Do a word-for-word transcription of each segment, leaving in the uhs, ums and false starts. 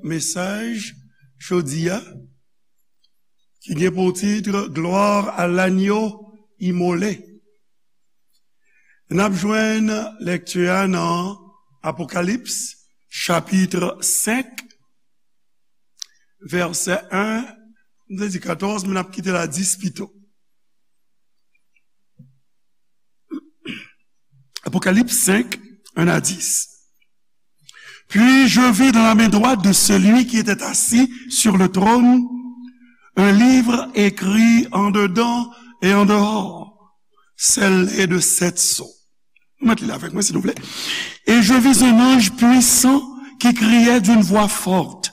Mesaj jodi a, ki gen pou tit Gloire à l'agneau immolé. N ap jwenn lekti a nan Apokalips, chapit senk, vèsè en, m te di katòz, men n ap kite l a dis pito. Apocalypse cinq, un à dix. Puis je vis dans la main droite de celui qui était assis sur le trône un livre écrit en dedans et en dehors, scellé de sept sceaux. Mèt li avèk mwen, silvouplè. Et je vis un ange puissant qui criait d'une voix forte,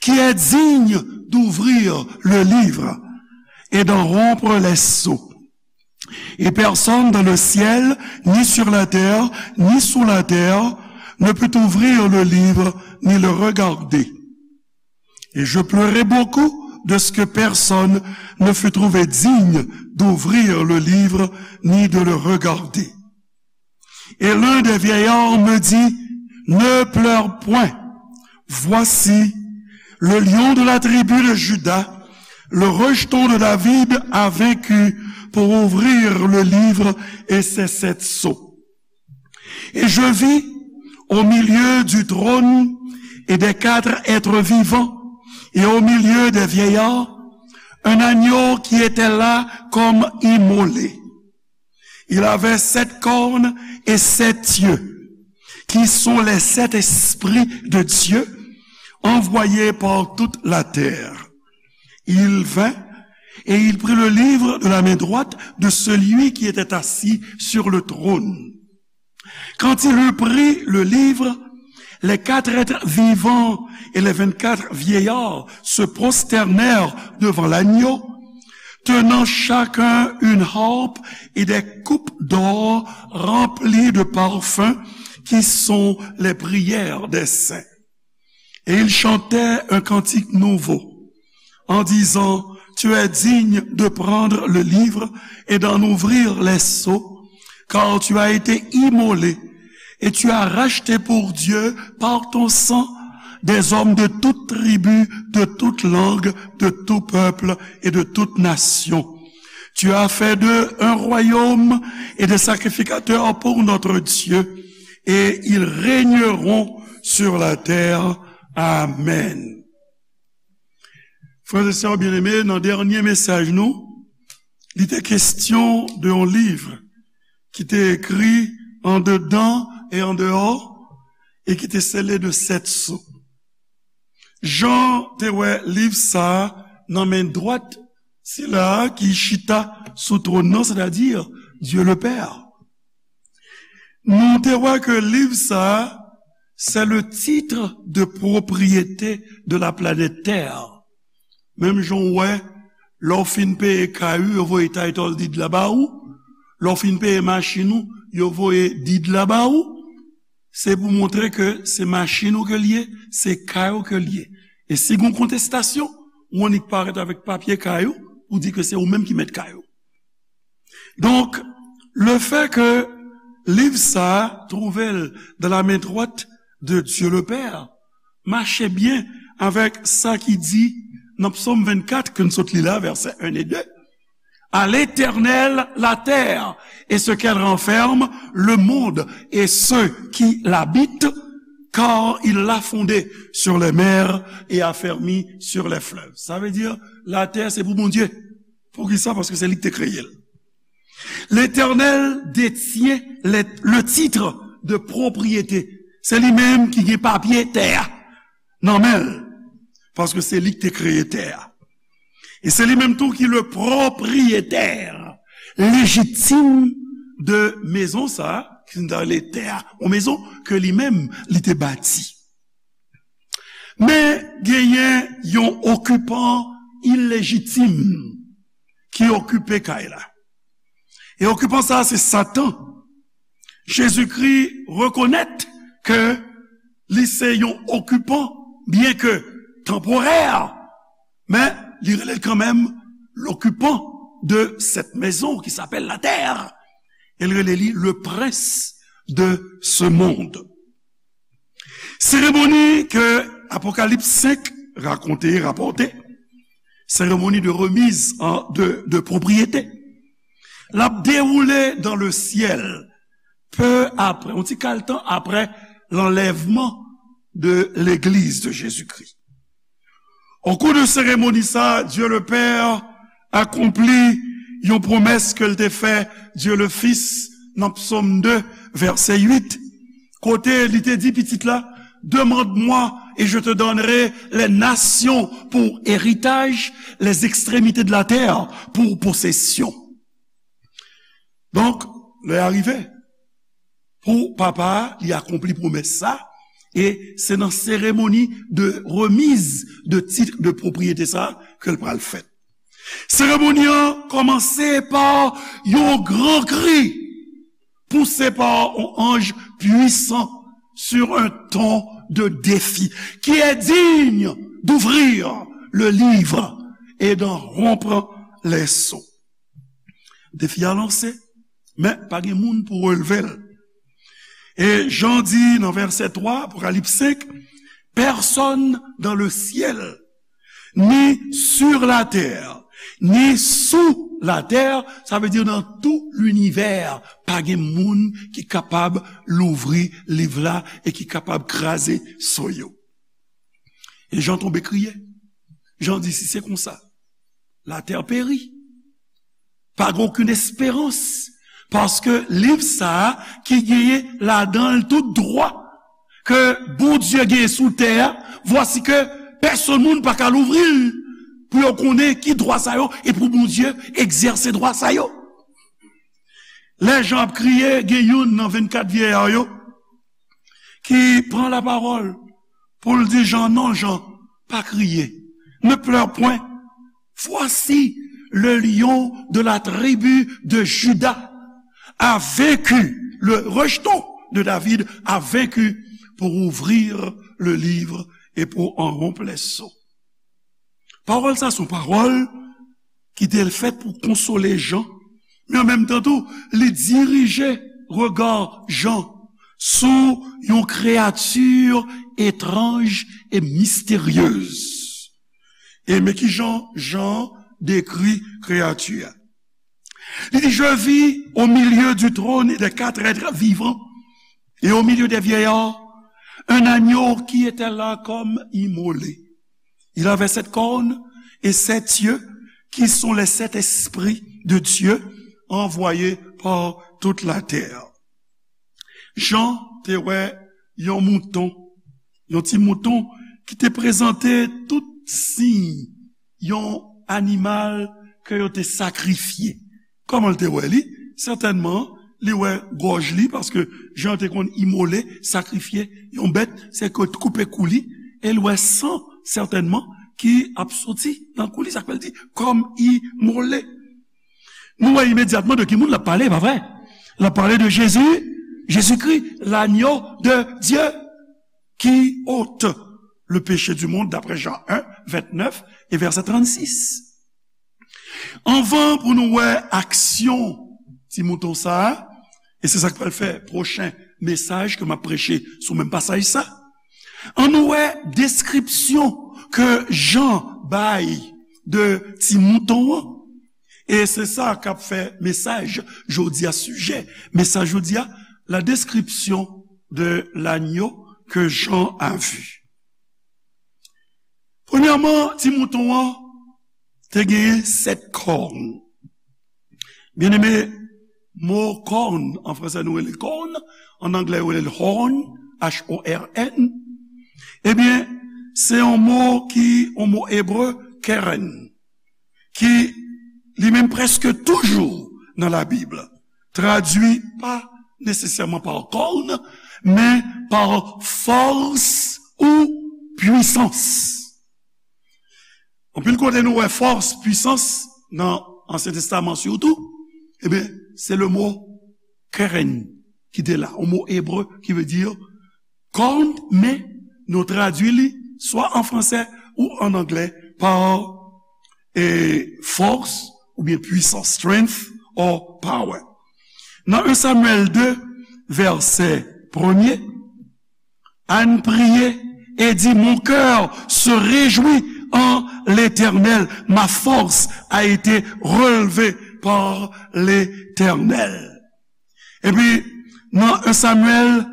qui est digne d'ouvrir le livre et d'en rompre les sceaux. Et personne dans le ciel, ni sur la terre, ni sous la terre, ne put ouvrir le livre, ni le regarder. Et je pleurai beaucoup de ce que personne ne fut trouvé digne d'ouvrir le livre, ni de le regarder. Et l'un des vieillards me dit, ne pleure point. Voici, le lion de la tribu de Juda, le rejeton de David, a vaincu pour ouvrir le livre et ses sept sceaux. Et je vis au milieu du trône et des quatre êtres vivants et au milieu des vieillards, un agneau qui était là comme immolé. Il avait sept cornes et sept yeux, qui sont les sept esprits de Dieu envoyés par toute la terre. Il vint et il prit le livre de la main droite de celui qui était assis sur le trône. Quand il eut pris le livre, les quatre êtres vivants et les vingt-quatre vieillards se prosternèrent devant l'agneau, tenant chacun une harpe et des coupes d'or remplies de parfums qui sont les prières des saints. Et ils chantaient un cantique nouveau, en disant, tu es digne de prendre le livre et d'en ouvrir les sceaux, car tu as été immolé et tu as racheté pour Dieu par ton sang des hommes de toute tribu, de toute langue, de tout peuple et de toute nation. Tu as fait d'eux un royaume et des sacrificateurs pour notre Dieu, et ils régneront sur la terre. Amen. Frères et sœurs bien-aimés, nan dènye mesaj nou, li te kestyon de yon liv ki te ekri andedan e andeyò e ki te sele de sèt so. Jan te wè liv sa a nan men dwat sila a ki chita sou twòn nan, sètadi Dieu le Père. Nou te wè ke liv sa a, c'est le titre de propriété de la planète Terre. Menm jan w wè, lè w fin peye kay ou, yo voye title deed la ba ou. Lè w fin peye machin ou, yo voye deed la ba ou. Se pou montre ke se machin ou ke l ye, se kay ou ke l ye. E si gen kontestasyon, ou annik parèt avèk papye kay ou pou di ke se ou menm ki mèt kay ou. Donk, le fait que liv sa a twouve l dans la main droite de Dieu le Père mache byen avèk sa ki di nan Psaume vingt-quatre ke n sot li la, vèsè en e de, à l'Éternel la terre et ce qu'elle renferme, le monde et ceux qui l'habitent, car il l'a fondée sur les mers et affermi sur les fleuves. Sa vle di, latè se pou Bondye. Poukisa? Paske se li ki te kreye l. L'Éternel détient le, le titre de propriété. Se li menm ki gen papye tè a nan men l. Paske se li ki te kreye tè a. E se li menm tou ki le propriétaire légitime de maison sa, ki se ta rele tè a, yon maison ke li menm li te bati. Men genyen yon okipan ilejitim ki okipe kay la. E okipan sa a se Satan. Jezikri rekonèt ke li se yon okipan, byen ke tanporè, men li rele l kanmenm l'occupant de cette maison qui s'appelle la terre. E l rele li le prince de ce monde. Seremoni ke Apocalypse cinq raconte, rapporte cérémonie de remise en, de, de propriété. L ap déroulé dans le ciel, peu après, yon ti kal tan apre lanlèvman de l'église de Jésus-Christ. Au cours de cérémonie sa, Dieu le Père akonpli yon pwomès ke l te fè Dieu le Fils nan Psaume deux, verset huit, kote li te di pitit la, demande-moi et je te donnerai les nations pour héritage, les extrémités de la terre pour possession. Donk, lè a rive pou papa a, li akonpli pwomès sa, e se nan seremoni de remise de titre de propriété sa ke l pral fèt. Seremoni an kòmanse pa yon gran kri, poussé par un ange puissant sur un ton de défi, qui est digne d'ouvrir le livre et d'en rompre les sceaux. Defi a lanse, men pa gen moun pou relve l. E Jan di nan vèsè twa, Apokalips senk, personne dans le ciel, ni sur la terre, ni sous la terre, sa vle di nan tout linivè, pa gen moun ki kapab louvri liv la e ki kapab kraze so yo. E Jan tonbe kriye. Jan di, si se konsa, la terre périt. Pa gen okenn esperans. Paske liv sa a ki genyen ladan l tout dwa ke Bondye genyen sou tè a, vwasi ke pèsonn moun pa ka louvri l pou yo konnen ki dwa sa yo e pou Bondye egzèse dwa sa yo. Lè Jan ap kriye, gen youn nan vennkat vyèya yo ki pran lapawòl pou l di Jan, non, Jan, pa kriye. Ne pleure point. Voici le lion de la tribu de Juda a vaincu, le rejeton de David a vaincu pour ouvrir le livre et pour en rompre les sceaux. Pawòl sa se yon pawòl ki te fèt pou konsole Jan, men an menm tan tou, li dirije rega Jan sou yon kreyati etranj e misteryez. E men kijan Jan dekri kreyati a. Li di, je vis au milieu du trône et des quatre êtres vivants et au milieu des vieillards, un agneau qui était là comme immolé. Il avait sept cornes et sept yeux, qui sont les sept esprits de Dieu envoyés par toute la terre. Jan te wè yon mouton, yon ti mouton ki te prezante tout siy yon animal ke yo te sakrifye. Kòman l te wè li? Sètènman, li wè gòj li, paske Jan te konn imole, sakrifye yon bèt, se ke koupe kou li, e l wè san, sètènman, ki ap soti nan kou li, sa k fè l di, kòm imole. Nou wè imedyatman de ki moun l ap pale, pa vre? L ap pale de Jezi, Jezikri, l'agneau de Dieu qui ôte le péché du monde, d'après Jean un, vingt-neuf et verset trente-six. Anvan pou nou wè aksyon ti mouton sa a, e se sa k pral fè pwochen mesaj ke m ap preche sou menm pasaj sa, ann nou wè deskripsyon ke Jan bay de ti mouton an. E se sa k ap fè mesaj jodi a, sijè mesaj jodi a, la description de l'agneau que Jean a vu. Premyèman, ti mouton an te genyen sèt kòn. Byeneme, mo kòn, an fransè nou rele kòn, an anglè yo rele l horn, H O R N. Ebyen, se yon mo ki, yon mo ebre, keren, ki li menm prèske toujou nan Labib, tradui pa nesesèman pa kòn, men pa fòs ou pwisans. Anpil kote nou wè fòs, pwisans, nan Ansyen Testaman sitou, ebyen, se le mo keren ki te la, yon mo ebre ki vle di kòn, men nou tradui li swa an fransè ou an anglè pa, e, fòs oubyen pwisans, strength or power. Nan en Samyèl de, vèsè premye, ann priye et dit, mon cœur se réjouit en l'Éternel, ma force a été relevée par l'Éternel. Epi, nan en Samyèl,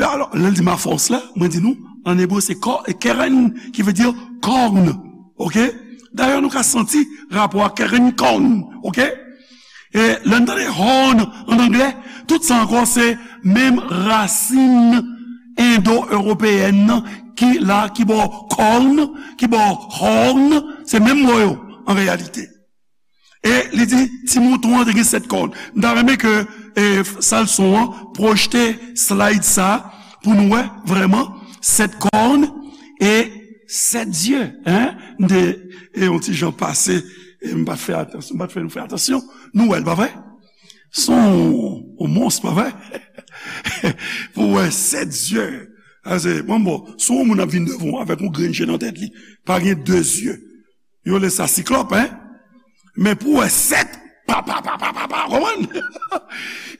alò, lè l di ma force la, mwen di nou, an ebre, se kò-, keren, ki vle di kòn. Oke? Dayè, nou ka santi rapò a keren kòn. Oke? E lè n tande horn an anglè, tout sa ankò se menm rasin endo-ewopeyèn nan ki la, ki bò kòn, ki bò horn, se menm mo yo an reyalite. E li di, ti mouton an te gen sèt kòn. M ta renmen ke, e, sal son an pwojte slide sa pou nou wè vrèman sèt kòn e sèt zye, en? M te, e, yon ti jan pase, e m pa t fè atansyon, m pa t fè nou fè atansyon. Nou wè l, pa vre? Se yon, yon mons, pa vre? Pou wè sèt zye. Ase, bon, bon, si yon moun ap vin devan w avèk yon grenn je nan tèt li, pa gen de zye. Yo rele sa siklòp, en? Men pou wè sèt, pa, pa, pa, pa, pa, pa, konprann?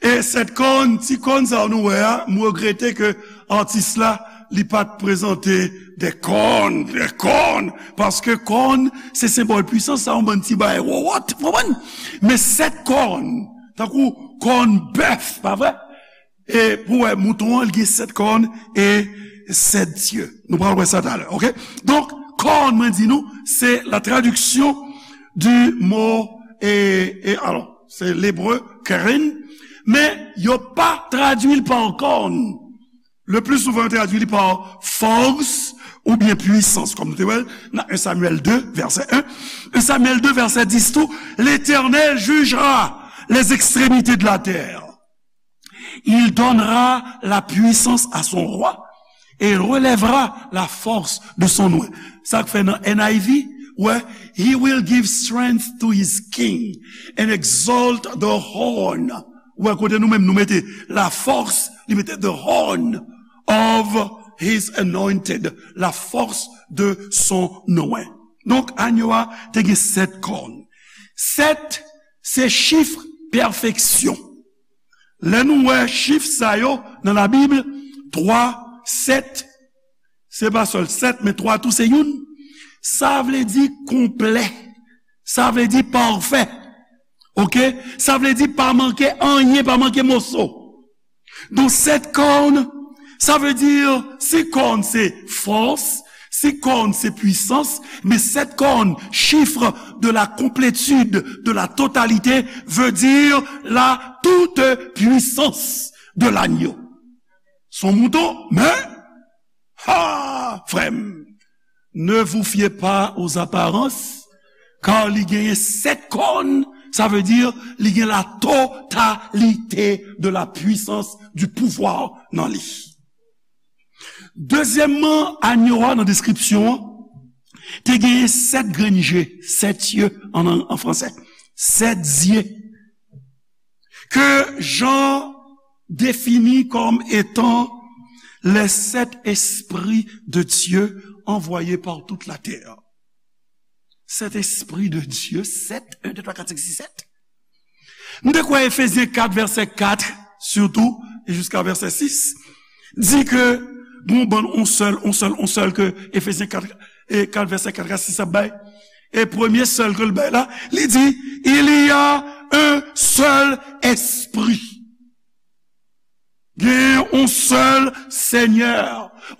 E sèt kòn, ti kòn sa nou wè a, m regrete ke atis la, li pa t prezante de kòn, de kòn, paske kòn, se senbòl pwisans, sa yon bann ti bagay wowòt, konprann? Men sèt kòn, tankou kòn bèf, pa vre? E pou wè, mouton an, li gen sèt kòn e sèt zye. Nou pral wè sa talè, oke? Donk, kòn, mwen di nou, se la traduction du mot, e, e, alò, se lebre keren, men yo pa tradui l pa kòn. Le plus souvent, yo tradui li pa fòs oubyen pwisans, kòm nou te wè l nan en Samyèl de, vèsè en. En Samyèl de, vèsè dis tou, L'Éternel jugera les extrémités de la terre. Il donnera la puissance à son roi et il relèvera la force de son oint. Sa k fè nan N I V, wè, he will give strength to his king and exalt the horn. Wè, kote nou menm nou mete la force, li mete the horn of his anointed, la force de son oint. Donk, anyo a te gen sèt kòn. Sèt, se chif pèfeksyon. Lè nou wè chif sa yo nan Labib, twa, sèt, se pa sèl sèt, men twa tou se youn. Sa vle di konplè. Sa vle di pafè. Oke? Sa vle di pa manke anyen, pa manke moso. Donk, sèt kòn, sa vle di, si kòn se fòs, si kòn se pwisans, men sèt kòn, chiffre de la complétude, de la totalité, veut dire la toute puissance de l'agneau. Se yon mouton, men, ha, frè m, ne vous fiez pas aux apparences, kar li genyen sèt kòn, sa vle di li gen la totalité de la puissance, du pouvoir nan li. Dezyèmman, anyo a nan deskripsyon an, te genyen sèt grenn je, sèt zye an, an, an fransè. Sèt zye. Que Jean définit comme étant les sept esprits de Dieu envoyés par toute la terre. Sèt espri de Dye, sèt, en, de, twa, kat, senk, sis, sèt. Nou te kwè Efezyen kat, vèsè kat, sitou, e jiska vèsè sis, di ke gon bann on sèl, on sèl, on sèl ke Efezyen kat, e kat, vèsè kat a sis ap bay. E premye sèl ke l bay la, li di, il y a un seul esprit. Gen yon sèl Senyè,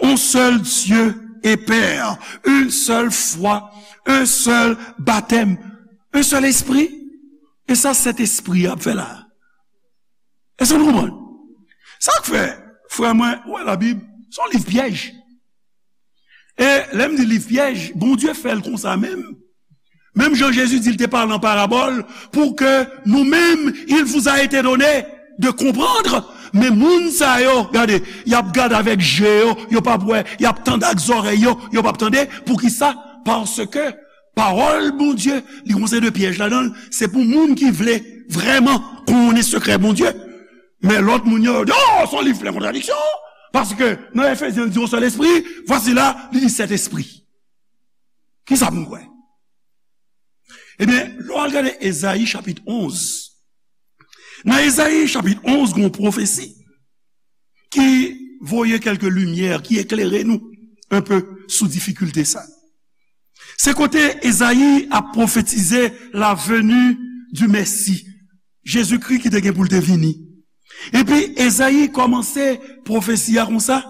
yon sèl Dye e Pè, une seule foi, un seul baptême, un seul esprit. E sa Sentespri a ap fè la. Èske nou konprann? Sa k fè, frè mwen, ou wè Labib, se yon liv pyèj. E lè m di liv pyèj, Bondye fè l konsa menm. Menm jan Jezi di l te pale an parabòl, pou ke nou menm, il vous a été donné de comprendre. Men moun sa yo, gade, y ap gade avèk je yo, yo p ap wè, y ap tande ak zòrèy yo, yo p ap tande. Poukisa? Paske pawòl Bondye, li gon seri de pyèj ladan l, se pou moun ki vle vrèman konnen sekrè Bondye. Men lòt moun yo, yo di, "Oh, se yon liv plen kontradiksyon." Paske nan Efezyen, li di yon sèl espri, vwasi la, li di sèt espri. Kisa pou n kwè? Ebyen, lè w al gade Ezayi chapit onz, nan Ezayi chapit onz, gen yon pwofesi ki voye kèlke limyè, ki eklere nou enpe sou difikilte sa. Se kote Ezayi ap pwofetize la venue du Messie, Jezikri ki te gen pou l te vini. Epi Ezayi kòmanse pwofesi a konsa.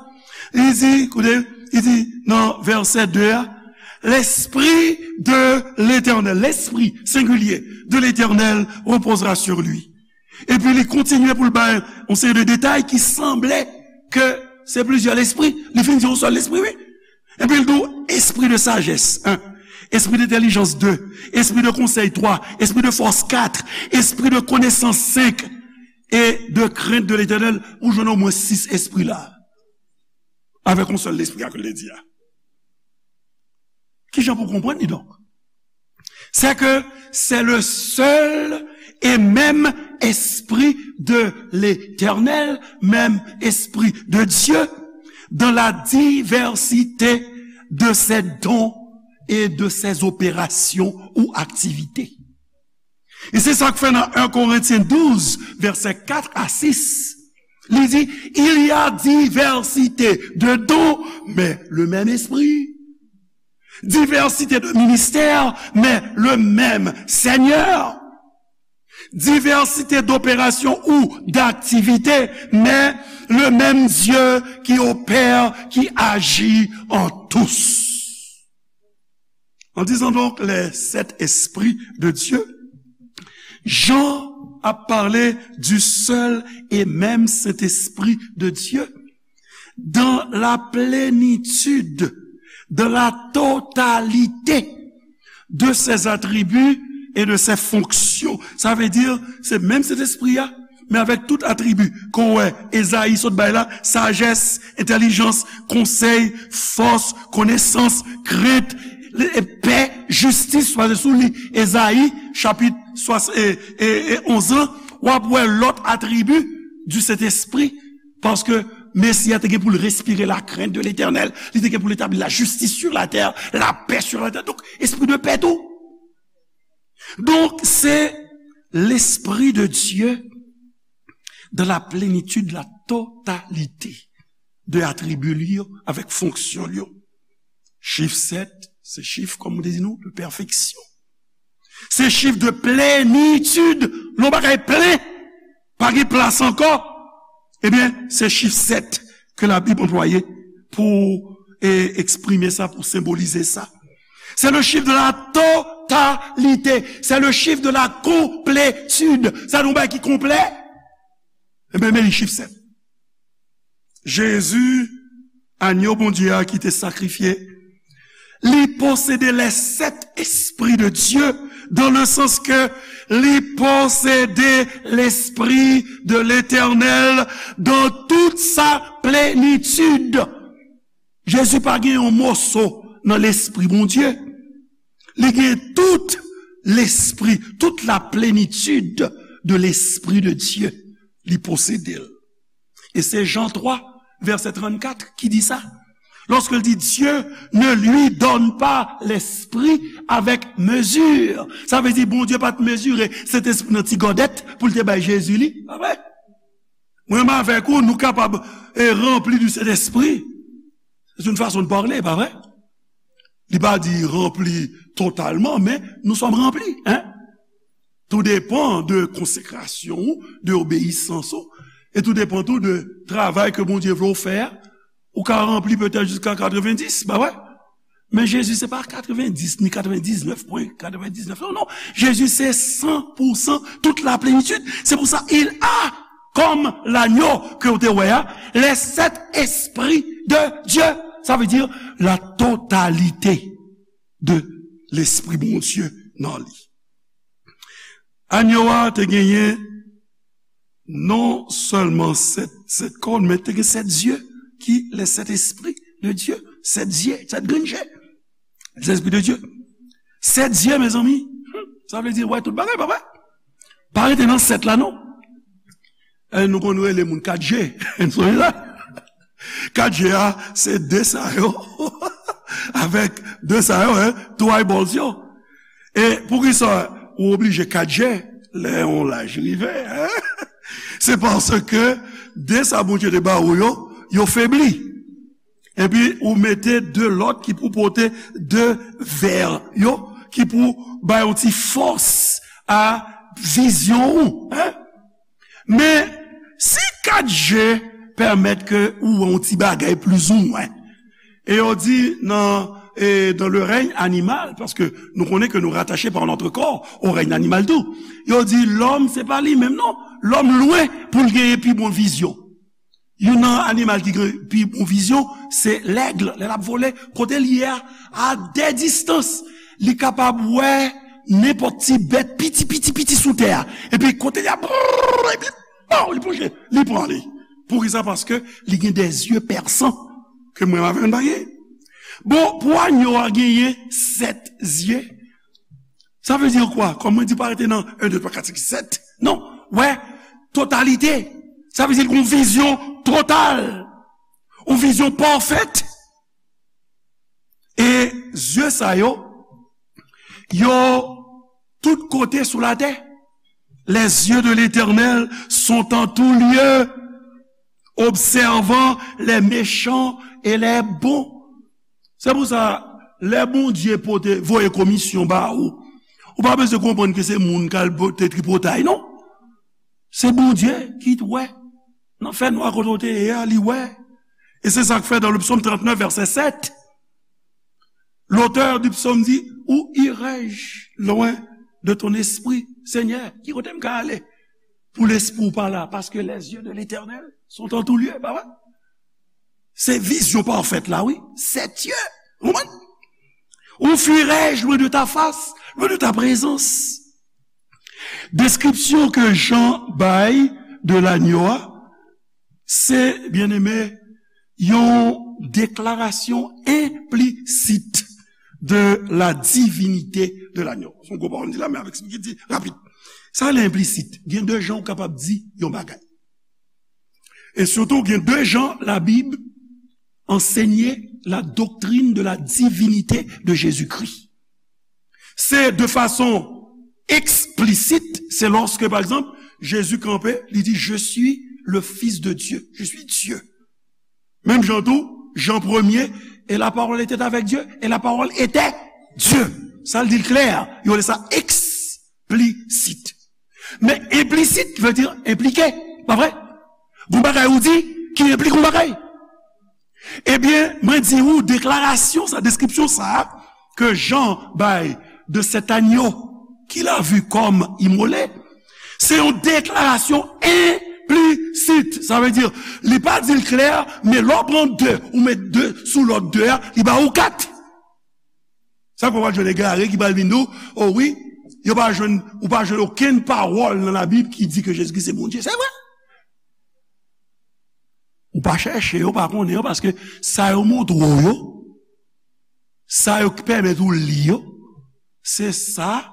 Li di, koute, li di nan vèsè de a, L'Esprit de l'Éternel, l'Esprit, singulier, de l'Éternel reposera sur lui. Epi li kontinye pou l bay yon seri de detay ki sanble ke se plizyè lespri. Li fin di yon sèl lespri, wi. Epi l di w, esprit de sagesse, en. Esprit d'intelligence, de. Esprit de conseil, twa. Esprit de force, kat. Esprit de connaissance, senk. Et de crainte de l'Éternel, ou jwenn omwen sis espri la. Avèk yon sèl lespri a ke l te di a. Kijan pou konprann li donk? C'est que c'est le seul et même Esprit de l'Éternel, même Esprit de Dieu, dans la diversité de ses dons et de ses opérations ou activités. E se sa k fè nan en Korentyen douz, vèsè kat a sis, li di, Il y a diversité de dons, mais le même Esprit. Diversité de ministères, mais le même Seigneur. Diversité d'opérations ou d'activités, mais le même Dieu qui opère, qui agit en tous. En disant donc les sept esprits de Dieu, Jean a parlé du seul et même Saint-Esprit de Dieu dans la plénitude, dans la totalité de ses attributs et de ses fonctions. Sa vle di, se menm Sentespri a, men avèk tout atribi ke w wè Ezayi sot bay la, sajès, entèlijans, konsèy, fòs, konesans, krent, pè, jistis, pase sou li, Ezayi, chapit swa- e, e, e onz lan, w ap wè lòt atribi du Sentespri, paske Mesi a te gen pou l respire la crainte de l'Éternel, li te gen pou l etabli la justice sur la terre, la paix sur la terre. Donk, espri de pè tou. Donk, se l'Esprit de Dieu dans la plénitude, la totalité de atribi li yo, avèk fonksyon li yo. Chif sèt, se chif, kòm mwen te di nou, de pèfeksyon. Se chif de plenitid. Lè yon bagay plen, pa gen plas ankò. Ebyen, se chif sèt ke Labib anplwaye pou, e, eksprime sa, pou senbolize sa. C'est le chiffre de la totalité. C'est le chiffre de la complétude. Sa nou bay ki konplè? Ebyen, men li chif sèt. Jezi, anyo Bondye a ki te sakrifye, li posede les sept esprits de Dieu, dans le sens que li posede l'Esprit de l'Éternel dans toute sa plénitude. Jezi pa gen yon moso nan Lespri Bondye. Li gen tout Lespri, toute la plénitude de l'Esprit de Dieu. Li posede l. E se Jan twa, vèsè trannkat ki di sa. Lorsque l di, Dieu ne lui donne pas l'esprit avec mesure. Sa vle di, Bondye pa t mezire Sentespri nan ti gòdèt pou l te bay Jezi li. Pa vre? Mwen menm avèk ou, nou kapab, e, ranpli du Sentespri. C'est une façon de parler, pa vre? Li pa di ranpli totalman, men nous sommes remplis, hein? Tou depan de konsekrasyon ou, de obeyisans ou, e tou depan tou de travay ke Bondye vle w fè a. Ou ka ranpli petèt jiska katrevenndis, pa vre? Men Jezi se pa katrevenndis, ni katrevendiznèf pwen katrevendiznèf. Non, non. Jezi se san pou san, tout la plenitid. Se pou sa, il a, comme l'agneau ke w te wè a, les sept esprits de Dieu. Sa vle di la totalité de Lespri Bondye nan li. Anyo a te genyen non sèlman sèt, sèt kòn, men te gen sèt zye ki les sept esprits de Dieu, sèt zye, sèt grenn je. Les esprits de Dieu. Sèt zye, mezanmi. Sa vle di, wè tout bagay, pa vre? Pa rete nan sèt la, non. E nou konn rele moun kat je. Nou sonje sa? Kat je a, se de sa yo. Avèk de sa yo, hein, two eyeballs yo. E poukisa ou oblije kat je lè yon laj rive, hein? Se paske de sa Bondye te ba ou yo, yo febli. Epi ou mete de lòt ki pou pote de vè yo, ki pou bay yon ti fòs a vizyon ou, en? Men, si kat je pèmèt ke ou wè yon ti bagay plizoumwen, e yo di nan, e, dans le règne animal, paske nou konnen ke nou rattaché par notre corps au règne animal tou. Yo di lòm, se pa li menm non. Lòm lwen pou l genyen pi bon vizyon. Youn nan animal ki gen pi bon vizyon, se lèg. Lè l ap vole, kote l ye a, a de distans, li kapab wè nenpòt ti bèt piti, piti, piti sou tè a. Epi kote l ye a, brrr, epi, pow, li plonje, li pran li. Poukisa? Paske li gen de zye pèsan ke mwen avè w n pa gen. Bon, pou anyo a genyen sèt zye, sa vle di kwa? Kòm mwen di, pa rete nan en, de, twa, kat, senk, sèt. Non, wè, totalite. Sa vle di l gen yon vizyon total. Yon vizyon pafèt. E zye sa yo, yo tout kote sou latè. Les yeux de l'Éternel sont en tout lieu, observant les méchants et les bons. Se pou sa, lè Bondye pote, voye komisyon ba ou, ou pa bezwen konprann ke se moun k al pote tripotay, non. Se Bondye ki t wè. Nan fènwa kote w te ye a, li wè. E se sa k fè, dans le psaume trente-neuf, verset sept, l'auteur du psaume dit, où irai-je loin de ton esprit, Seigneur? Ki kote m ka ale pou lespri w pa la? Parce que les yeux de l'Éternel sont en tout lieu, pa vre? Se vizyon pafèt la, wi. Sèt zye. Ou konprann? Où fuirai-je loin de ta face, loin de ta présence? Deskripsyon ke Jan bay de lanyo a, se, byeneme, yon deklarasyon enplisit de la divinite de lanyo. Se yon gwo pawòl m di la, men avèk eksplike di rapid. Sa rele enplisit. Gen de jan ou kapab di yon bagay. E sitou, gen de jan Labib ansenye la doctrine de la divinité de Jésus-Christ. Se de fason eksplisit, se lòske, pa egzanp, Jezi kanpe, li di, je suis le Fils de Dieu, je suis Dieu. Menm jan tou, Jan premye, et la parole était avec Dieu, et la parole était Dieu. Sa l di l klè, yo rele sa eksplisit. Men enplisit vle di enplike, pa vre? Gon bagay ou di ki enplike yon bagay. Ebyen, mwen di ou, deklarasyon sa, deskripsyon sa a, ke Jan bay de cet agneau qu'il a vu comme immolé, se yon deklarasyon enplisit. Sa vle di, li pa di l klè, men lè w pran de, ou met de sou lòt de a, li ba ou kat. Sa k fè w pral jwenn egare ki pral vin di w, o wi, yo pa jwenn, ou pa jwenn okenn pawòl nan Labib ki di ke Jezikri se Bondye. Se vre. Ou pa chèche yo, ou pa konnen yo, paske sa yo montre w yo, sa yo pèmèt ou li yo, se sa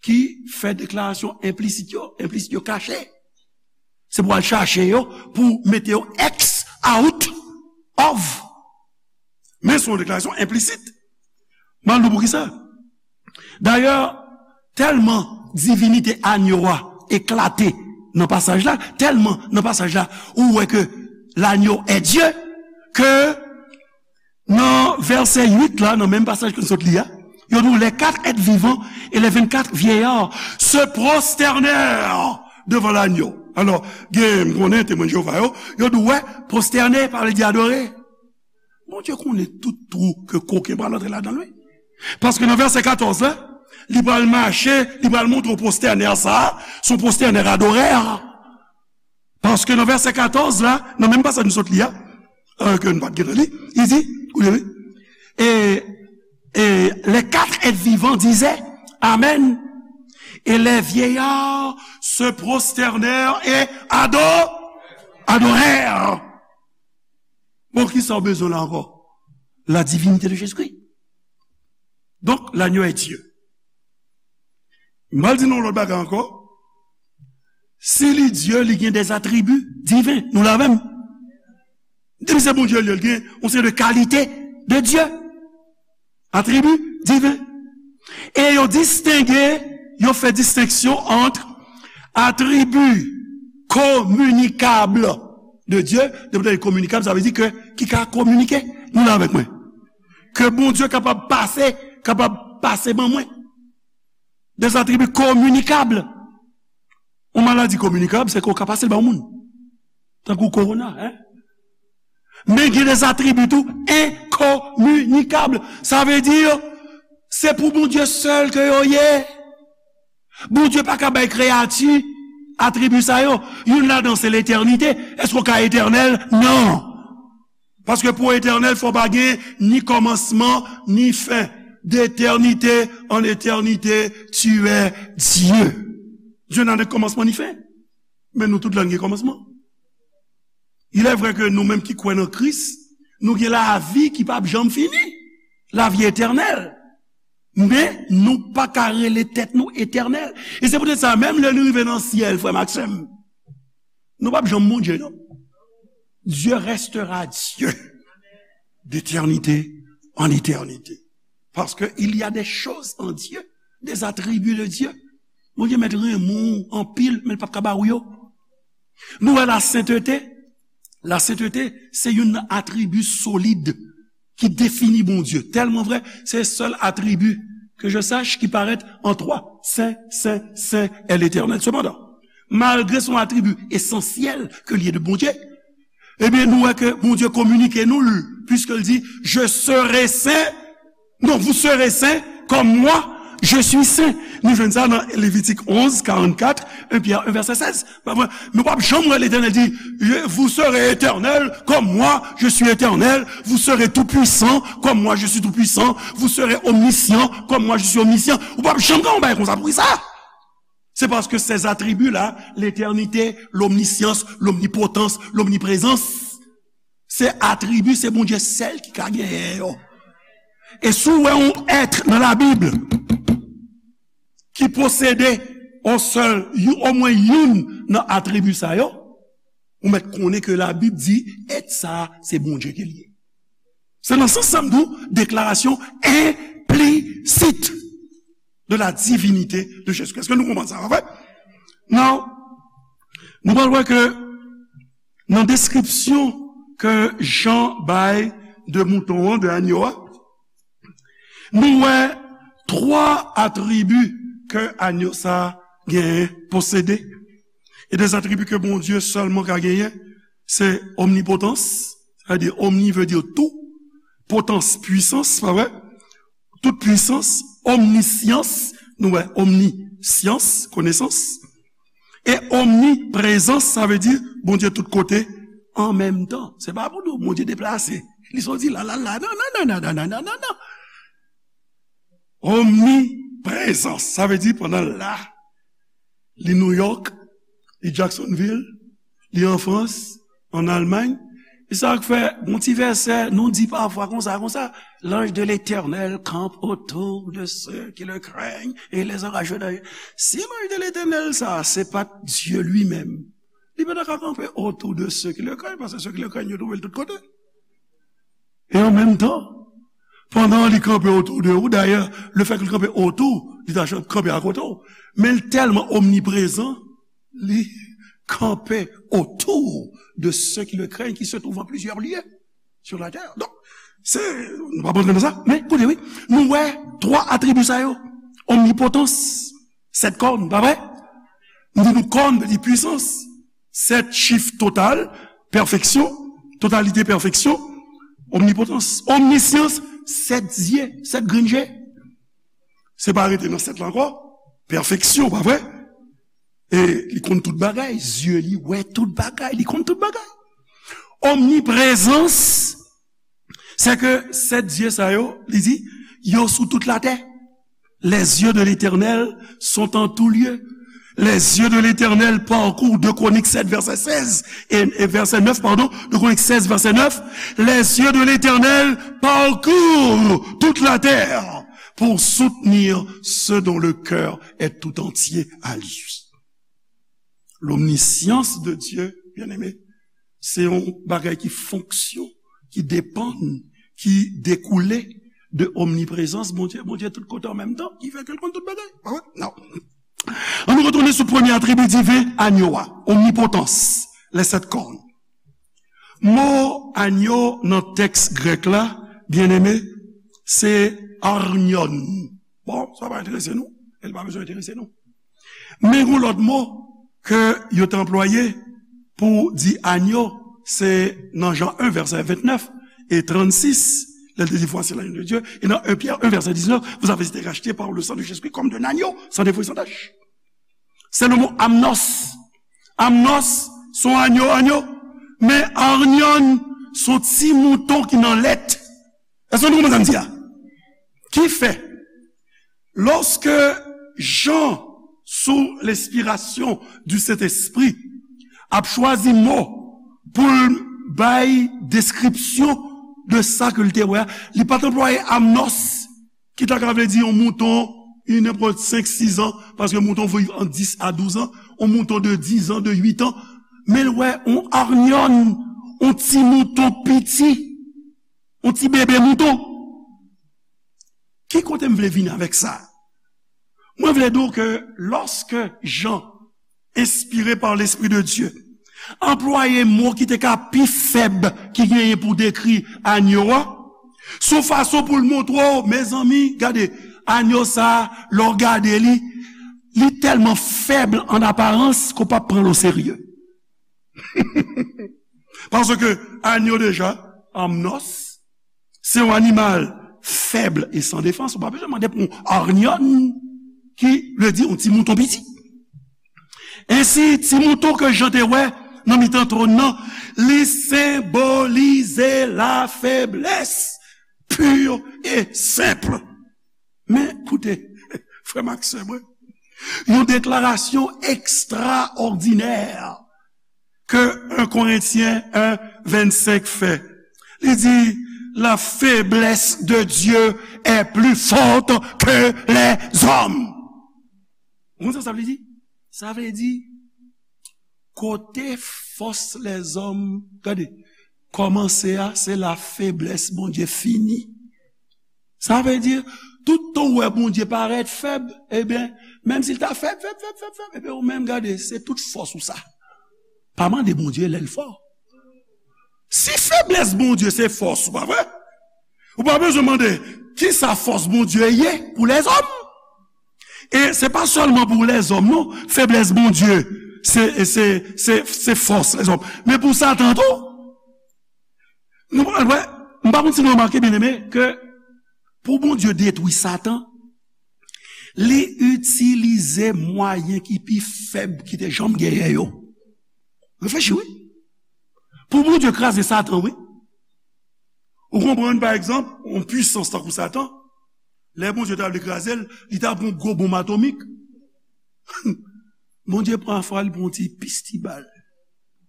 ki fè deklarasyon enplisit yo, enplisit yo kache. Se pou al chache yo, pou mete yo X out of. Men se yon deklarasyon enplisit. M al di w poukisa. Dayè, tèlman divinite agneau a eklate nan pasaj la, tèlman nan pasaj la, ou wè ke l'agneau est Dieu, ke nan vèsè uit la, nan menm pasaj ke n sot li a, yo di w, les quatre êtres vivants et les vingt-quatre vieillards se prosternèrent devant l'agneau. Alò, gen, m konnen Temwen de Jewova yo, yo di w, wè, prostène pa vle di adore. Bondye konnen tout twou ke koken pral antre ladan l, wi. Paske nan vèsè katòz la, li pral mache, li pral montre w pwostènè sa a, se yon pwostènè adorè. Paske nan vèsè katòz la, nan menm pasaj nou sot li a, euh, ke nou pa t gentan li, li di, koute wi, et, et les quatre êtres vivants disaient, Amen. Et les vieillards se prosternèrent et ado-, adorèrent. Bon, kisa w bezwen la ankò? La divinité de Jésus-Christ. Donk, l'agneau est Dieu. M al di nou yon lòt bagay ankò. Si li Dye, li gen des attributs divins. Nou la menm? Depi se Bondye li ye, li gen yon seri de kalite de Dye. Atribi diven. E yo distenge, yo fè distenksyon ant atribi kominikab de Dye, depi w tande kominikab, sa vle di ke ki ka kominike, Nou la avèk mwen? Ke Bondye kapab pase, kapab pase ban mwen. Des attributs communicables. Yon maladi kominikab, se ke w ka pase l ba yon moun. Tankou kowona, en? Men gen des attributs tou enkominikab. Sa vle di, se pou Bondye sèl ke yo ye. Bondye pa ka bay kreyati atribi sa yo. Youn ladan se letènite. Èske w ka etènèl? Non. Paske pou w etènèl, fò pa gen ni kòmansman, ni fen. D'éternité en éternité, tu es Dieu. Dieu n'a ni commencement ni fin. Men nou tout la n gen kòmansman. Il est vrai ke nou menm ki kwè nan Kris, nou gen lavi ki p ap janm fini, lavi etènèl. Men nou pa ka rele tèt nou etènèl. E se poutèt sa, menm lè nou rive nan syèl, frè m ak sè m, nou p ap janm Bondye, non. Dieu restera Dieu d'éternité en éternité. Parce que il y a des choses en Dieu, des attributs de Dieu. Bondye mèt renmen w anpil, men l p ap ka ba w yo. Nou wè lasentete. Lasentete, se youn nan atribi solid ki defini Bondye. Tèlman vrè, se sèl atribi, que je sache, ki parèt an twa. Sen, sen, sen est l'Éternel. Sepandan, malgre se yon atribi esansyèl ke l ye de Bondye, ebyen, nou wè ke Bondye kominike nou l, puisque l di, je serai saint, non, vous serez saints comme moi, je suis saint. Nou jwenn sa nan Levitik onz, karannkat, en Pyè en, vèsè sèz. Pa vre? Men w p ap janm wè Letènèl di, vous serez éternel comme moi, je suis éternel, vous serez tout puissant comme moi, je suis tout puissant, vous serez omniscient comme moi, je suis omniscient. Ou p ap janm gen yon bagay konsa. Poukisa? Se paske ces attributs-là, l'éternité, l'omniscience, l'omnipotence, l'omniprésence, se atribi, se Bondye sèl ki ka genyen yo. E si w wè yon èt nan Labib ki posede on sèl, you- omwen youn nan atribi sa yo, ou mèt konnen ke Labib di èt sa a, se Bondye ke l ye. Se nan sans sa m di w, deklarasyon enplisit de la divinité de Jésus-Christ. Èske nou konprann sa, pa vre? Now, nou pral wè ke nan deskripsyon ke Jan bay de mouton an, de anyo a, nou wè twa atribi ke anyo sa a genyen, posede. E de atribi ke Bondye sèlman ka genyen, se omnipotans, sa vle di omni vle di tou, potans, pwisans, pa vre? Tout pwisans, omnisyans, nou wè, omnisyans, konesans. E omniprezans, sa vle di Bondye tout kote an menm tan. Se pa pou nou Bondye deplase. Li soti la, la, la. Non, non, non, non. Omniprezans, sa vle di pandan l la, li New York, li Jacksonville, li an Frans, an Almay. E sa k fè, gon ti vèsè, nou di pafwa konsa, konsa, l'ange de l'Éternel campe autour de ceux qui le craignent et les encourage. Si l'ange de l'Éternel sa, se pa t Dieu lui-même, li pa ta ka kanpe autour de ceux qui le craignent, paske ceux qui le craignent, yo twouve l tout kote. E an menm tan, pandan li kanpe otou de ou, dayè, le fè ke l kanpe otou, li ta kanpe akote w. Men l tèlman omniprezan, li kanpe autour de ceux qui le craignent, qui se trouvent en plusieurs lieux sur la terre. Donk, se, nou pa antre nan sa, men koute, wi, nou wè twa atribi sa yo. Omnipotans, sèt kòn, pa vre? Nou di nou kòn vle di pwisans. Sèt chif total, pèfeksyon, totalite, pèfeksyon, omnipotans, omnisyans, sèt zye, sèt grenn je. Se pa rete nan sèt la ankò, pèfeksyon, pa vre? E li konn tout bagay, zye li wè tout bagay, li konn tout bagay. Omniprezans, se ke sèt zye sa yo, li di, yo sou tout latè. Les yeux de l'Éternel sont en tout lieu. Les yeux de l'Éternel parcourent, deux Chroniques sept, verset seize, et, et verset neuf, pardon, deux Chroniques seize, verset neuf. Les yeux de l'Éternel parcourent toute la terre pour soutenir ceux dont le cœur est tout entier à lui. L'omniscience de Dieu, bien-aimé, se yon bagay ki fonksyon, ki depann, ki dekoule de omniprezans Bondye. Bondye tout kote an menm tan, ki fè ke l konn tout bagay. Pa vre? Non. Ann nou retounen sou premye atribi diven anyo a, omnipotans, les sept cornes. Mo anyo nan tèks grèk la, byeneme, se arnyon. Bon, sa pa enterese nou, e l pa bezwen enterese nou. Men gen lòt mo ke yo te anplwaye pou di anyo, se nan Jan en, vèsè vennèf e trannsis, lè l te di, Voici l'agneau de Dieu, e nan en Pyè en, vèsè diznèf, Vous avez été rachetés par le sang de Jésus-Christ comme d'un agneau sans défaut et sans tache. Se le mo amnos. Amnos, se yon anyo, anyo. Men arnyon, se yon ti mouton ki nan lèt. Èske nou konprann sa m di a? Ki fè, lòske Jan, sou lenspirasyon di Sentespri, ap chwazi mo pou l bay deskripsyon de sa ke l te wè a, li pa t anplwaye amnos, ki ta ka vle di yon mouton, yon nenpòt senk, sis an, paske mouton viv ant dis a douz an, yon mouton de dis an, de uit an, men l wè yon arnyon, yon ti mouton piti, yon ti bebe mouton. Ki kote m vle vin avèk sa? Mwen vle di w ke lòske Jan, enspire pa Lespri de Dye, anplwaye mo ki te ka pi fèb ki genyen pou dekri anyo a, sou fason pou l montre w, mezanmi, gade, anyo sa a, lè w gade li, li tèlman fèb an aparans ke w p ap pran l oserye. Paske anyo deja, amnos, se yon animal fèb e san defans. Ou pa bezwen mande pou yon arnyon, ki vle di yon ti mouton piti. Ensi, ti mouton ke Jan te wè nan mitan twòn nan, li senbolize lafeblès pi e senp. Men, koute, frè m ak sè mwen, yon deklarasyon ekstraòdinè ke en Korentyen en vennsenk fè. Li di, La faiblesse de Dieu est plus forte que les hommes. Ou konn sa sa vle di? Sa vle di, kote fòs lèzòm, gade, kòmanse a, se la feblès Bondye fini. Sa vle di, tout tan w wè Bondye parèt fèb, ebyen, menm si l ta fèb, fèb, fèb, fèb, fèb, ebyen, ou menm, gade, se tout fòs ou sa. Pa mande Bondye lè l fò. Si feblès Bondye se fòs ou, pa vre? Ou pa bezwen mande ki sa fòs Bondye ye pou lèzòm. E se pa sèlman pou lèzòm, non. Feblès Bondye, se, se, se, se fòs lèzòm. Men pou Satan tou, nou pral wè, m pa konn si nou remake, byeneme, ke pou Bondye detwi Satan, li itilize mwayen ki pi fèb ki te janm genyen yo. Reflechi, wi. Pou Bondye kraze Satan, wi. Ou konprann, pa egzanp, yon pwisans tankou Satan, lè Bondye ta vle kraze l, li ta pran yon gwo bonm atomik. Bondye pafwa li pran yon ti pistibal.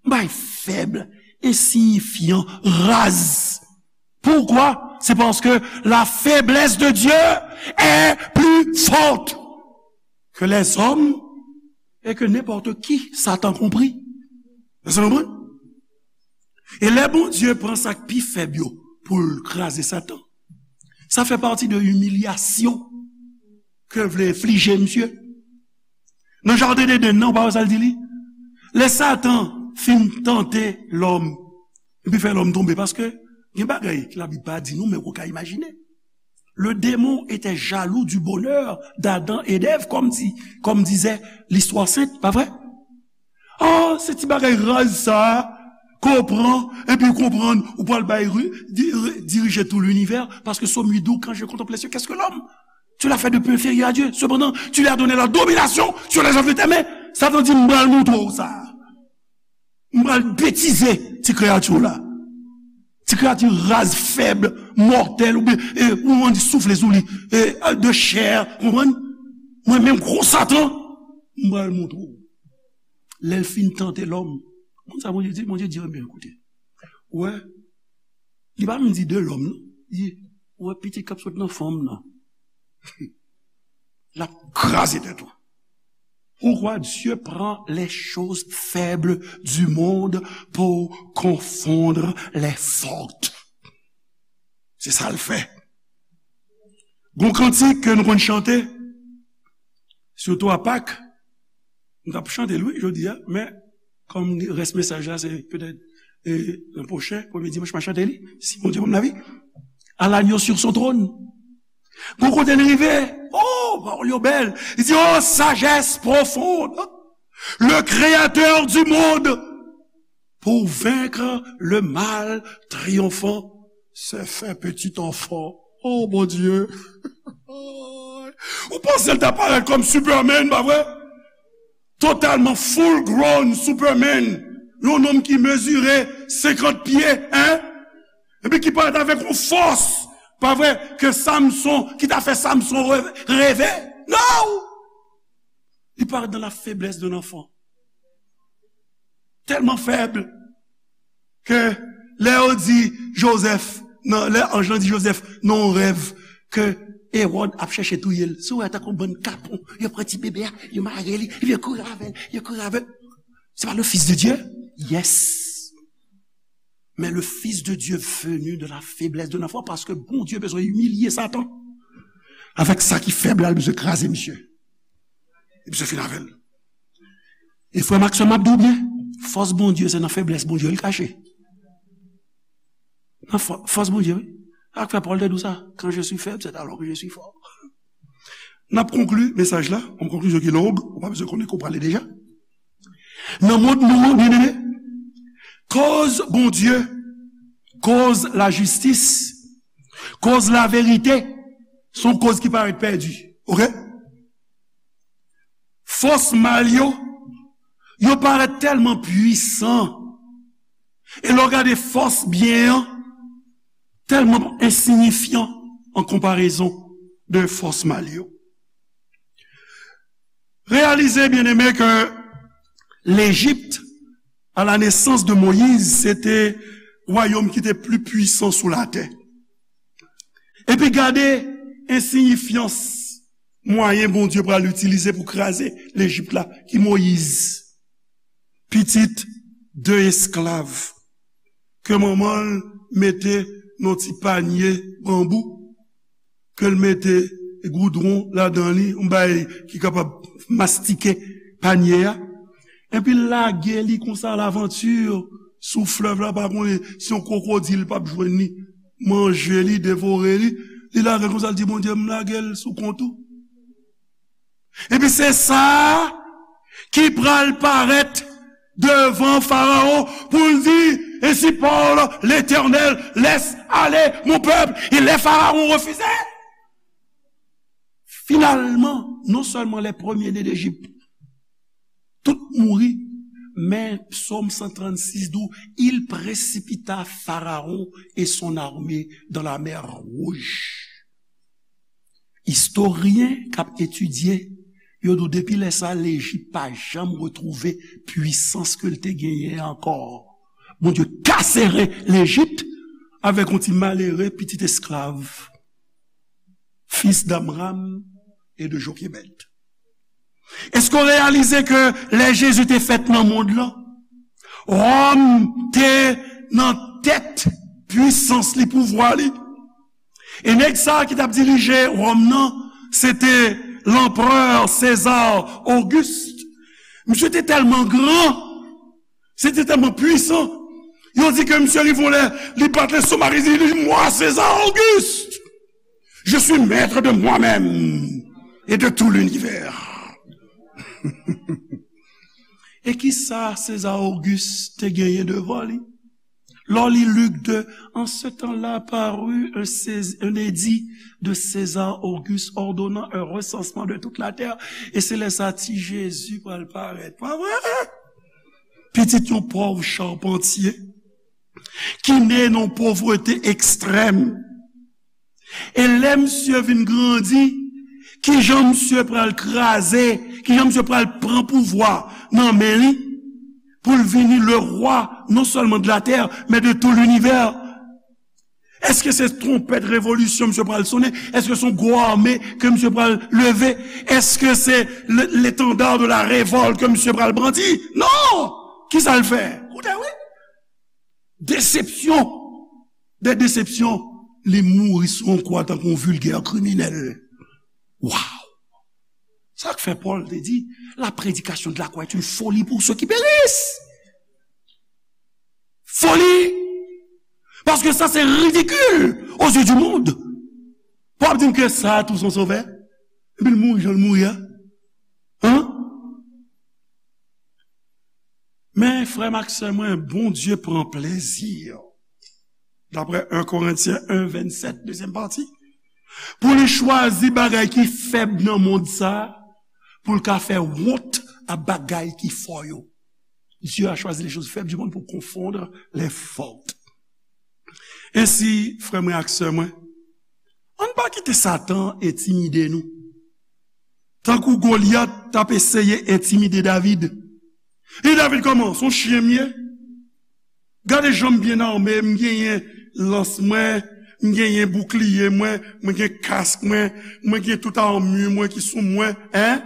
Bay fèb, ensiyifyan, raz. Pourquoi? C'est parce que la faiblesse de Dieu est plus forte que les hommes et que n'importe qui, Satan compris. Èske nou konprann? E lè Bondye pran sa k pi fèb yo pou l kraze Satan, sa fè pati de imilyasyon ke l vle enflije misye. Nan jaden Edenn nan, ou pa wè sa l di li? Lè Satan fin tante lòm, epi fè lòm tonbe, paske gen bagay ke Labib pa di nou, men ou ka imajine. Le démon était jaloux du bonheur d'Adam et d'Ève, comme dit, comme disait l'histoire sainte, pa vre? Oh, se ti bagay raz sa a, ke w pran, epi w konprann, ou pral bay ri-, di-, ri-, dirije tou linivè, paske Sòm uit di w, Quand je contemple les cieux, qu'est-ce que l'homme? Tu l'as fait de peu inférieur à Dieu. Cependant, tu lui as donné la domination sur les œuvres de tes mains. Satan di, m pral montre w sa. M pral betize ti kreyati w la. Ti kreyati raz, fèb, mòtèl, oubyen, e, ou ann soufle sou li, e, de chè, konprann? Mwen menm, gwo Satan, m pral montre w. Lè l fin tante lòm, konn sa Bondye di? Bondye di, ebyen, koute, ou wè, li pa menm di de lòm, non. Li di, ou wè pitit k ap sot nan fanm nan. L ap kraze tèt ou. Pourquoi Dieu prend les choses faibles du monde pour confondre les fortes? Se sa l fè. Gon kantik ke nou konn chante, sitou a Pak, nou t ap chante l, wi, jodi a, men kòm rès mesaj la, se petèt e, lan pwochen, premye dimanch, m a chante li, si Bondye ban m lavi, à l'agneau sur son trône. Gon kote l rive, oh, pawòl yo bèl. Li di, oh, sagesse profonde, le créateur du monde, pour vaincre le mal triomphant, s'est fait petit enfant. Oh, Bondye. Ou panse l ta parèt kòm Superman, pa vre? Totalman full grown Superman. Yon nonm ki mezire senkant pye, en? Epi ki parèt avèk yon fòs, pa vre, ke Samson, ki ta fè Samson re-, reve. Non! Li parèt dans la faiblesse d'un enfant. Tèlman fèb ke lè yo di Jozèf, nan, lè anj lan di Jozèf, nan yon rèv, ke Ewòd ap chèche touye l. Si w wè tankou bann kapon, yo pran ti bebe a, yo mare li, epi yo kouri avè l, yo kouri avè l. C'est pas le Fils de Dieu? Yes. Mais le Fils de Dieu venu de la faiblesse d'un enfant, paske Bondye bezwen imilye Satan. Avèk sa ki fèb la, li bezwen kraze misye. Li bezwen fin avè l. E frè m ak sè m, m ap di w byen, fòs Bondye, se nan feblès Bondye li kache. Nan fò-, fòs Bondye, wi. Sa k fè Pòl te di w sa, quand je suis faible, c'est alors que je suis fort. N ap konkli mesaj la, yon konklizyon ki long, ou pa bezwen konnen ke w prale deja. Nan mond nou an, byeneme, koz Bondye, koz lajistis, koz laverite, se yon koz ki parèt pèdi. Oke? Fòs mal yo, yo parèt tèlman pwisan. E lè w gade fòs byen an, tèlman ensiyifyan an konparezon de fòs mal yo. Reyalize, byeneme, ke Lejip, à la naissance de Moïse, se te wayòm ki te pli pwisan sou latè. Epi gade ensiyifyans mwayen Bondye pral itilize pou kraze Lejip la, ki Moyiz, pitit de esklav, ke manman l mete nan ti panye banbou, ke l mete goudwon ladan li, yon bagay ki kapab mastike panye a, epi l lage li konsa alavanti sou flèv la, pa konnen si yon kwokodil p ap jwenn li, manje li, devore li, li lage l konsa, l di, Bondye, m lage l sou kont ou. Epi se sa a ki pral parèt devan Farawon pou l di, Ainsi parle l'Éternel, laisse aller mon peuple. E lè Farawon refize, finalman, non sèlman les premiers-nés d'Égypte, tout mouri, men Psaume cent trente-six di w, il précipita Pharaon et son armée dans la mer Rouge. Istoryen k ap etidye, yo di w depi lè sa, Lejip pa janm retwouve pwisans ke l te genyen ankò. Bondye kase ren Lejip avèk yon ti malere pitit esklav, fis d'Amram et de Jochebed. Èske w reyalize ke lè Jezi te fèt nan mond lan, Wòm te nan tèt pwisans li, pouvwa li? E nèg sa a ki t ap dirije Wòm nan, se te lanperè César Auguste. Misye te tèlman gran, se te tèlman pwisan. Yo di ke misye rive yon lè, li bat lestomak, li di, Moi, César Auguste, je suis maître de moi-même et de tout l'univers. E ki sa César Auguste te genyen devan li? Lè w li Lik de, En ce temps-là parut un Cés-, un édit de César Auguste ordonnant un recensement de toute la terre. E se lè sa ti Jezi pral parèt. Pa vre? Pitit yon pòv chapantye ki ne nan yon povrete ekstrèm. E lè misye vin grandi, kijan misye pral kraze, kijan misye pral pran pouvwa nan men li, pou l vini le roi, non seulement de la terre, mais de tout l'univers? Èske se twonpèt revolisyon misye pral sonnen? Èske se yon gwo ame ke misye pral leve? Èske se le, l'étendard de la révolte ke misye pral brandi? Non! Kisa l fè? Koute, wi. Desepsyon de desepsyon, li mouri sou yon kwa tankou yon vilgè kriminèl. Waw! Sa k fè Pòl te di, La prédication de la croix est une folie pour ceux qui périssent. Foli Paske sa se ridikil aux yeux du monde. Pou ap di m ke sa tou se yon sovè? Epi l mouri jan l mouri a? Hein? Men, frè m ak sè mwen, Bondye pran plezi, daprè en Korentyen en vennsèt, dezyèm pati, pou li chwazi bagay ki fèb nan mond sa a, pou l ka fè wont a bagay ki fò yo. Dieu a choisi les choses faibles du monde pour confondre les fortes. Ensi, frè mwen ak sè mwen, ann pa kite Satan entimide nou. Tankou Golyat t ap eseye entimide David. E David kòman? Se yon chen m ye. Gade jan m byen ame, m genyen lans mwen, m genyen boukliye mwen, mwen gen kask mwen, mwen gen tout armure mwen ki sou mwen, en?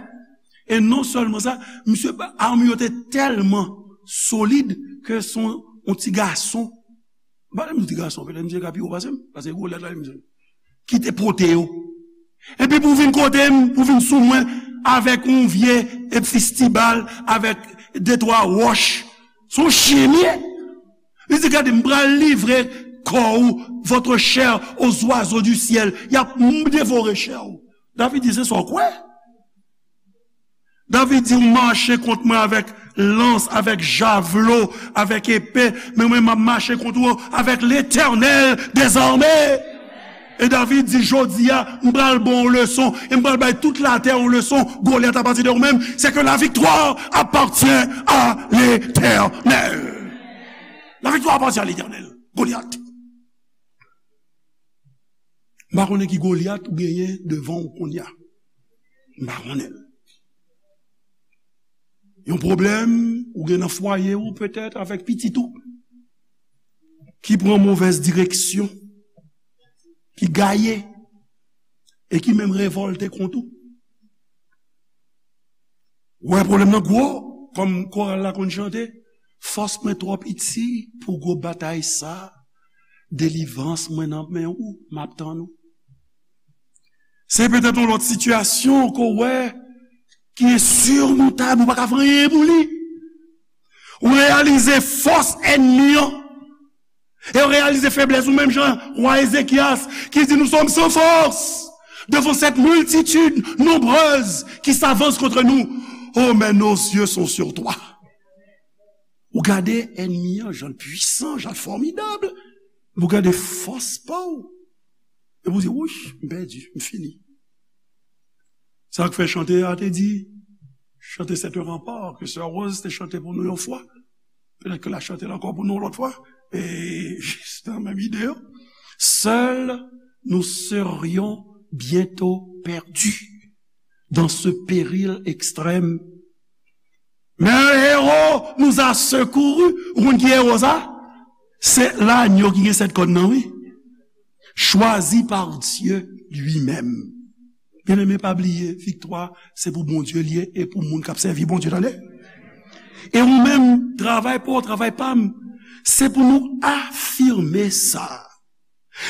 E non sèlman sa, misye, armure yo te tèlman solid ke se yon, yon ti gason, m pa di m ti gason, petèt misye ka pi wo pase m, paske Golyat la, misye, ki te pote yo. Epi pou vin kote m, pou vin sou mwen, avèk yon vye fistibal, avèk de twa wòch. Se yon chen m ye. Li di, gade, m pral livre kò ou, votre chair, aux oiseaux du ciel. Y ap devore chè ou. David di, se sa w kwè? David di, ou mache kont mwen avèk lans, avèk javlo, avèk epe, men mwen, m ap mache kont ou avèk Letènèl dèzame. E David di, jodi a, m pral ba w yon leson, e m pral bay tout latè yon leson, Golyat, apati de ou menm, c'est que la victoire appartient à l'Éternel. La victoire appartient à l'Éternel. Golyat. M pa konnen ki Golyat ou genyen devan w kounye a. M pa konnen l. Yon pwoblèm ou gen nan fwaye ou, petèt, avèk pitit ou, ki pran movèz direksyon, ki gaye, e ki menm revòlte kont ou. Ou wè pwoblèm nan gwo, kòm koral la konn chante, fòs mwen twò piti pou gwo batay sa, delivrans mwen nan men ou, m ap tann ou. Se petèt yon lòt sitiyasyon ke w wè ki ensirmontab, ou pa ka fè anyen pou li. Ou reyalize fòs ènmi an. E w reyalize feblès ou, menm jan wa Ezekyas ki di, nous sommes sans force devant cette multitude nombreuse qui s'avance contre nous. Oh, mais nos yeux sont sur toi. Ou gade ènmi an, jan l pwisan, jan l fòmidab. Ou gade fòs pa w. E pou di, wouch, m pèdi, m fini. Sa k fè chante a te di, chante C'est un rempart, ke sè Rose te chante pou nou yon fwa. Petèt ke l a chante l ankò pou nou yon lòt fwa. E jis nan menm ide yo. Seuls nous serions bientôt perdus dans ce péril extrême. Mais un héros nous a secourus. Ou konn ki ewo sa? Se lanyo ki gen sèt kòn nan, wi. Choisi par Dieu lui-même. Byeneme, pa bliye, viktwa, se pou Bondye l ye e pou moun k ap sèvi Bondye, tande. E ou menm, travay pa w, travay pa m, se pou nou afime sa.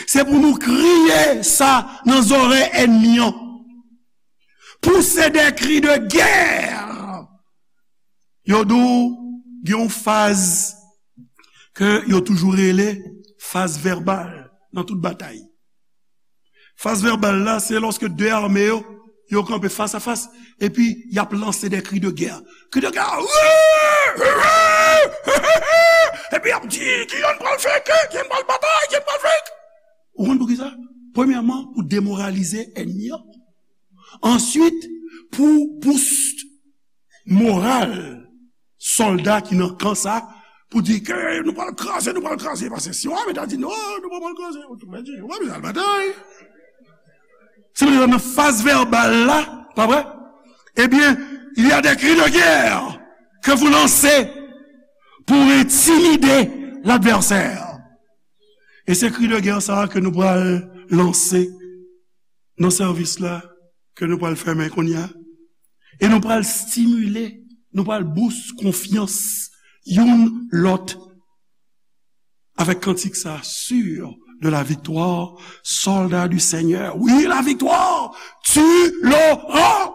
Se pou nou kriye sa nan zòrèy ènmi an. Pousser des cris de guerre. Yo di w, gen yon faz ke yo toujou rele faz vèbal nan tout batay. Faz vèbal la, se lòske de ame yo, yo kanpe fas a fas, epi y ap lanse de cris de guerre. Cris de guerre! Epi y ap di, ki yonn pral fè ke, ki yonn pral batay, ki yonn pral fè. Ou konn poukisa? Premyèman, pou demoralize ènmi an. Answit, pou boost moral sòlda ki nan kan sa, pou di ke nou pral kraze, nou pral kraze. Paske si w ame ta di, non, nou pa pral kraze, ou tou pèdi, ou pa bezwen al batay. Se pou sa nan faz vèbal la, pa vre? Ebyen, il y a des cris de guerre que vous lancez pour intimider l'adversaire. E se kri de gè sa a ke nou pral lanse nan sèvis la ke nou pral fèmen kounye a. E nou pral stimile, nou pral bous konfyans youn lòt avèk kantik sa, sûr de la victoire, soldat du Seigneur. Oui, la victoire, tu l'auras.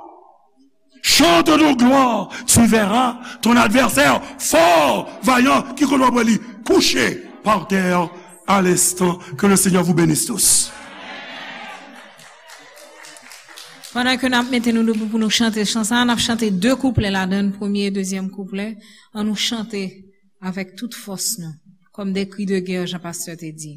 Chante de gloire, tu verras ton adversaire fort, vaillant, ki kote w ap wè li kouche par terre. à l'instant. Que le Seigneur vous bénisse tous. Pandan ke n ap mete nou debou pou nou chante chan sa, n ap chante de kouplè ladan l, premye e dezyèm kouplè. Ann nou chante avèk tout fòs nou, kòm de kri de gè, jan pastè te di.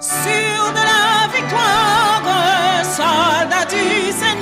Sûr de la victoire, soldat du Seigneur.